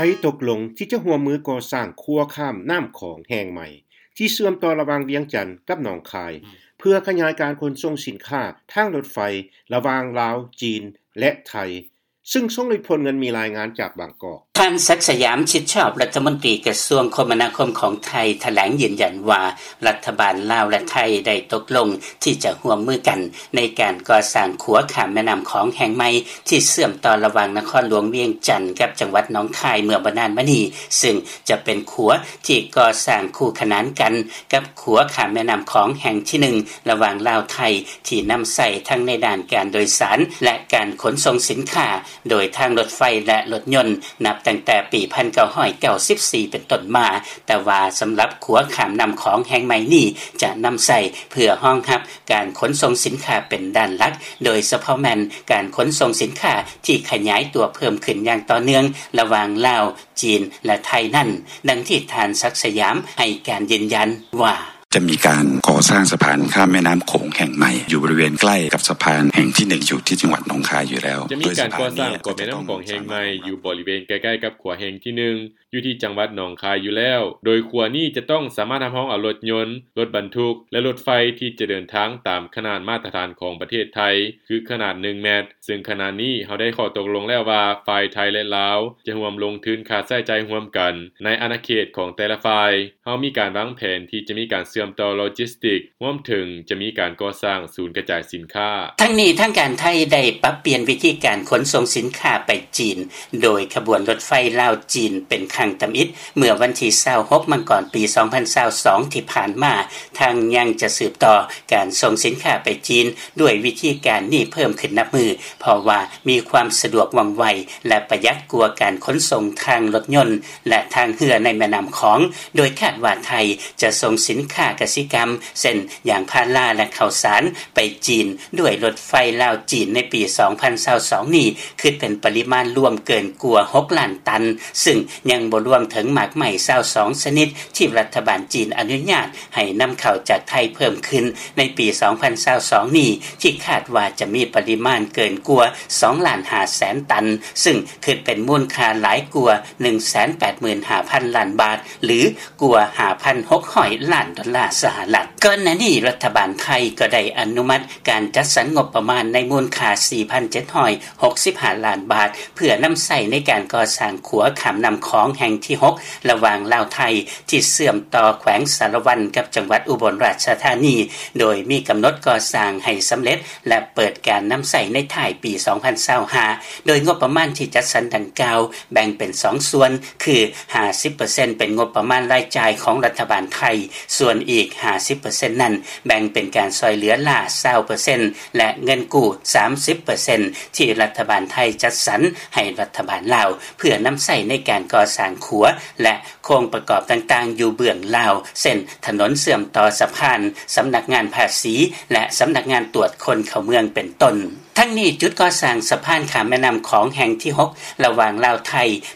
ໄທຕົກລົງທີ່ຈະຮ່ວມມືກໍ່ສ້າງຂົວຂ້າມນ້ຳຂອງແຫ່ງໃໝ່ ທີ່ເຊື່ອມຕໍ່ລະຫວ່າງວຽງຈັນກັບໜອງຄາຍ ເພື່ອຂະຫຍາຍການຂົນສົ່ງສິນຄ້າທາງລົດໄຟລະຫວ່າງລາວ, ຈີນ ແລະ ໄທ ຊຶ່ງຊົງໄດ້ຜົນເງິນ. ມີລາຍງານຈາກບາງກອກ. ທ່ານ ສັກ ສະຫຍາມ ຊິດຊອບ ລັດຖະມົນຕີກະຊວງຄົມມະນາຄົມຂອງໄທ ຖະແຫຼງຢືນຢັນວ່າ ລັດຖະບານລາວ ແລະ ໄທ ໄດ້ຕົກລົງທີ່ຈະຮ່ວມມືກັນ ໃນການກໍ່ສ້າງຂົວຂ້າມແມ່ນ້ຳຂອງແຫ່ງໃໝ່ ທີ່ເຊື່ອມຕໍ່ລະຫວ່າງນະຄອນຫຼວງວຽງຈັນກັບຈັງຫວັດໜອງຄາຍເມື່ອບໍ່ນານມານີ້, ຊຶ່ງຈະເປັນຂົວທີ່ກໍ່ສ້າງຄູ່ຂະໜານກັນກັບຂົວຂ້າມແມ່ນ້ຳຂອງແຫ່ງທີໜຶ່ງ ລະຫວ່າງລາວ-ໄທ ທີ່ນຳໃຊ້ທັງໃນດ້ານການໂດຍສານ ແລະ ການຂົນສົ່ງສິນຄ້າ ໂດຍທາງລົດໄຟ ແລະ ລົດຍົນ ນັບຕັ້ງແຕ່ປີພັນເກົ້າຮ້ອຍເກົ້າສິບສີ່ເປັນຕົ້ນມາ, ແຕ່ວ່າສຳລັບຂົວຂ້າມນ້ຳຂອງແຫ່ງໃໝ່ນີ້ ຈະນຳໃຊ້ເພື່ອຮອງຮັບການຂົນສົ່ງສິນຄ້າເປັນດ້ານຫຼັກ, ໂດຍສະເພາະແມ່ນການຂົນສົ່ງສິນຄ້າທີ່ຂະຫຍາຍຕົວເພີ່ມຂຶ້ນຢ່າງຕໍ່ເນື່ອງລະຫວ່າງລາວ, ຈີນ ແລະ ໄທນັ້ນ, ດັ່ງທີ່ທ່ານ ສັກ ສະຫຍາມ ໃຫ້ການຢືນຢັນວ່າ: ຈະມີການກໍ່ສ້າງສະພານຂ້າມແມ່ນ້ຳໂຂງແຫ່ງໃໝ່ ຢູ່ບໍລິເວນໃກ້ກັບສະພານແຫ່ງທີໜຶ່ງ ຢູ່ທີ່ຈັງຫວັດໜອງຄາຍຢູ່ແລ້ວ. ຈະມີການກໍ່ສ້າງຂົວແມ່ນ້ຳຂອງແຫ່ງໃໝ່ ຢູ່ບໍລິເວນໃກ້ໆກັບຂົວແຫ່ງທີໜຶ່ງ ຢູ່ທີ່ຈັງຫວັດໜອງຄາຍຢູ່ແລ້ວ, ໂດຍຂົວນີ້ຈະຕ້ອງສາມາດຮັບຮອງເອົາລົດຍົນ, ລົດບັນທຸກ ແລະ ລົດໄຟທີ່ຈະເດີນທາງຕາມຂະໜາດມາດຕະຖານຂອງປະເທດໄທ ຄືຂະໜາດໜຶ່ງແມັດ, ຊຶ່ງຂະນະນີ້ເຮົາໄດ້ຂໍ້ຕົກລົງແລ້ວວ່າ ຝ່າຍໄທ ແລະ ລາວ ຈະຮ່ວມລົງທຶນຄ່າໃຊ້ຈ່າຍຮ່ວມກັນໃນອານາເຂດຂອງແຕ່ລະຝ່າຍ. ເຮົາມີການວາງແຜນທີ່ຈະມີການເຊື່ອມຕໍ່ໂລຈິສຕິກ ຮວມເຖິງຈະມີການກໍ່ສ້າງສູນກະຈາຍສິນຄ້າ. ທັງນີ້ທາງການໄທໄດ້ປັບປ່ຽນວິທີການຂົນສົ່ງສິນຄ້າໄປຈີນ ໂດຍຂະບວນລົດໄຟລາວ-ຈີນເປັນຄັ້ງທຳອິດ ເມື່ອວັນທີຊາວຫົກ ມັງກອນ ປີສອງພັນຊາວສອງ ທີ່ຜ່ານມາ, ທັງຍັງຈະສືບຕໍ່ການສົ່ງສິນຄ້າໄປຈີນດ້ວຍວິທີການນີ້ເພີ່ມຂຶ້ນນັບມື້ ເພາະວ່າມີຄວາມສະດວກວ່ອງໄວ ແລະ ປະຢັດກວ່າການຂົນສົ່ງທາງລົດຍົນ ແລະ ທາງເຮືອໃນແມ່ນ້ຳຂອງ, ໂດຍຄາດວ່າໄທຈະສົ່ງສິນຄ້າກະສິກຳ ເຊັ່ນ ຢາງພາລາ ແລະ ເຂົ້າສານ ໄປຈີນດ້ວຍລົດໄຟລາວ-ຈີນໃນປີສອງພັນຊາວສອງນີ້ ຄິດເປັນປະລິມານລວມເກີນກວ່າຫົກລ້ານຕັນ, ຊຶ່ງຍັງບໍ່ລວມເຖິງໝາກໄມ້ຊາວສອງຊະນິດທີ່ລັດຖະບານຈີນອະນຸຍາດໃຫ້ນຳເຂົ້າຈາກໄທເພີ່ມຂຶ້ນໃນປີສອງພັນຊາວສອງນີ້ ທີ່ຄາດວ່າຈະມີປະລິມານເກີນກວ່າສອງລ້ານຫ້າແສນຕັນ, ຊຶ່ງຄິດເປັນມູນຄ່າຫຼາຍກວ່າໜຶ່ງແສນແປດໝື່ນຫ້າພັນລ້ານບາດ ຫຼື ກວ່າຫ້າພັນຫົກຮ້ອຍລ້ານດອນລາສະຫະລັດ. ກ່ອນໜ້ານີ້ລັດຖະບານໄທກໍໄດ້ອະນຸມັດການຈັດສັນງົບປະມານໃນມູນຄ່າສີ່ພັນເຈັດຮ້ອຍຫົກສິບຫ້າລ້ານບາດ ເພື່ອນຳໃຊ້ໃນການກໍ່ສ້າງຂົວຂ້າມນ້ຳຂອງແຫ່ງທີຫົກ ລະຫວ່າງລາວ-ໄທ ທີ່ເຊື່ອມຕໍ່ແຂວງສາລະວັນກັບຈັງຫວັດອຸບົນລາຊະທານີ, ໂດຍມີກຳນົດກໍ່ສ້າງໃຫ້ສຳເລັດ ແລະ ເປີດການນຳໃຊ້ໃນທ້າຍປີສອງພັນຊາວຫ້າ ໂດຍງົບປະມານທີ່ຈັດສັນດັ່ງກ່າວ ແບ່ງເປັນສອງສ່ວນ ຄື ຫ້າສິບເປີເຊັນ ເປັນງົບປະມານລາຍຈ່າຍຂອງລັດຖະບານໄທ, ສ່ວນອີກ ຫ້າສິບເປີເຊັນ ນັ້ນ ແບ່ງເປັນການຊ່ອຍເຫຼືອລ້າ ຊາວເປີເຊັນ ແລະ ເງິນກູ້ ສາມສິບເປີເຊັນ ທີ່ລັດຖະບານໄທຈັດສັນໃຫ້ລັດຖະບານລາວ ເພື່ອນຳໃຊ້ໃນການກໍ່ສ້າງຂົວ ແລະ ໂຄງປະກອບຕ່າງໆຢູ່ເບື້ອງລາວ ເຊັ່ນ ຖະໜົນເຊື່ອມຕໍ່ສະພານ, ສຳນັກງານພາສີ ແລະ ສຳນັກງານຕວດຄົນເຂົ້າເມືອງ ເປັນຕົ້ນ. ທັງນີ້, ຈຸດກໍ່ສ້າງສະພານຂ້າມແມ່ນ້ຳຂອງແຫ່ງທີຫົກ ລະຫວ່າງລາວ-ໄທ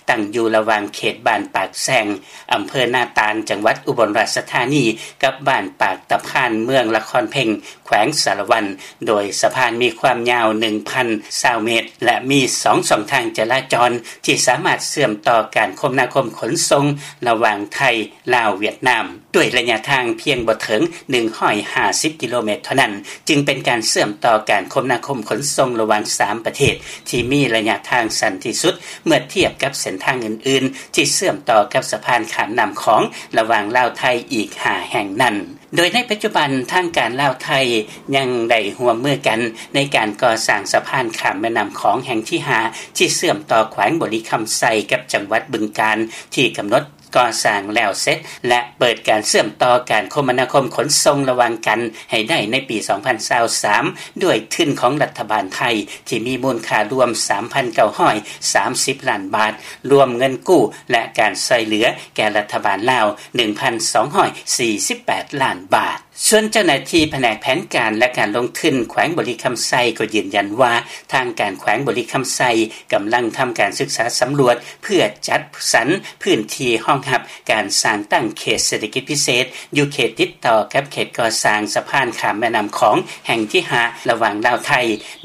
ຕັ້ງຢູ່ລະຫວ່າງເຂດບ້ານປາກແຊງ, ອຳເພີນາຕານ, ຈັງຫວັດອຸບົນລາຊະທານີ ກັບບ້ານປາກຕະພານ, ເມືອງລະຄອນເພັງ, ແຂວງສາລະວັນ, ໂດຍສະພານມີຄວາມຍາວໜຶ່ງພັນຊາວເມດ ແລະ ມີສອງຊ່ອງທາງຈະລາຈອນ ທີ່ສາມາດເຊື່ອມຕໍ່ການຄົມນາຄົມຂົນສົ່ງລະຫວ່າງໄທ, ລາວ, ຫວຽດນາມ ດ້ວຍໄລຍະທາງພຽງບໍ່ເຖິງໜຶ່ງຮ້ອຍຫ້າສິບກິໂລແມັດເທົ່ານັ້ນ, ຈຶ່ງເປັນການເຊື່ອມຕໍ່ການຄົມນາຄົມຂົນສົ່ງລະຫວ່າງສາມປະເທດ ທີ່ມີໄລຍະທາງສັ້ນທີ່ສຸດ ເມື່ອທຽບກັບເສັ້ນທາງອື່ນໆ ທີ່ເຊື່ອມຕໍ່ກັບສະພານຂ້າມນ້ຳຂອງລະຫວ່າງລາວ-ໄທອີກຫ້າແຫ່ງນັ້ນ. ໂດຍໃນປັດຈຸບັນ, ທາງການລາວ-ໄທຍັງໄດ້ຮ່ວມມືກັນໃນການກໍ່ສ້າງສະພານຂ້າມແມ່ນ້ຳຂອງແຫ່ງທີຫ້າ ທີ່ເຊື່ອມຕໍ່ແຂວງບໍລິຄຳໄຊກັບຈັງຫວັດບຶງການ ທີ່ກຳນົດ ກໍ່ສ້າງແລ້ວເສັດ ແລະ ເປີດການເຊື່ອມຕໍ່ການຄົມມະນາຄົມຂົນສົ່ງລະຫວ່າງກັນໃຫ້ໄດ້ໃນປີສອງພັນຊາວສາມ ດ້ວຍທຶນຂອງລັດຖະບານໄທ ທີ່ມີມູນຄ່າລວມສາມພັນເກົ້າຮ້ອຍສາມສິບລ້ານບາດ, ລວມເງິນກູ້ ແລະ ການຊ່ອຍເຫຼືອແກ່ລັດຖະບານລາວໜຶ່ງພັນສອງຮ້ອຍສີ່ສິບແປດລ້ານບາດ. ສ່ວນເຈົ້າໜ້າທີ່ພະແນກແຜນການ ແລະ ການລົງທຶນ ແຂວງບໍລິຄຳໄຊ ກໍຢືນຢັນວ່າ ທາງການແຂວງບໍລິຄຳໄຊ ກຳລັງທຳການສຶກສາສຳຫຼວດ ເພື່ອຈັດສັນພື້ນທີ່ຮອງຮັບ ການສ້າງຕັ້ງເຂດເສດຖະກິດພິເສດ ຢູ່ເຂດຕິດຕໍ່ກັບເຂດກໍ່ສ້າງສະພານຂ້າມແມ່ນ້ຳຂອງແຫ່ງທີຫ້າ ລະຫວ່າງລາວ-ໄທ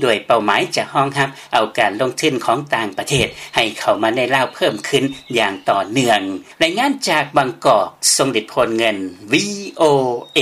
ດ້ວຍເປົ້າໝາຍຈະຮອງຮັບເອົາການລົງທຶນຂອງຕ່າງປະເທດ ໃຫ້ເຂົ້າມາໃນລາວເພີ່ມຂຶ້ນຢ່າງຕໍ່ເນື່ອງ. ລາຍງານຈາກບາງກອກ ຊົງລິດ ໂພນເງິນ ວີໂອເອ.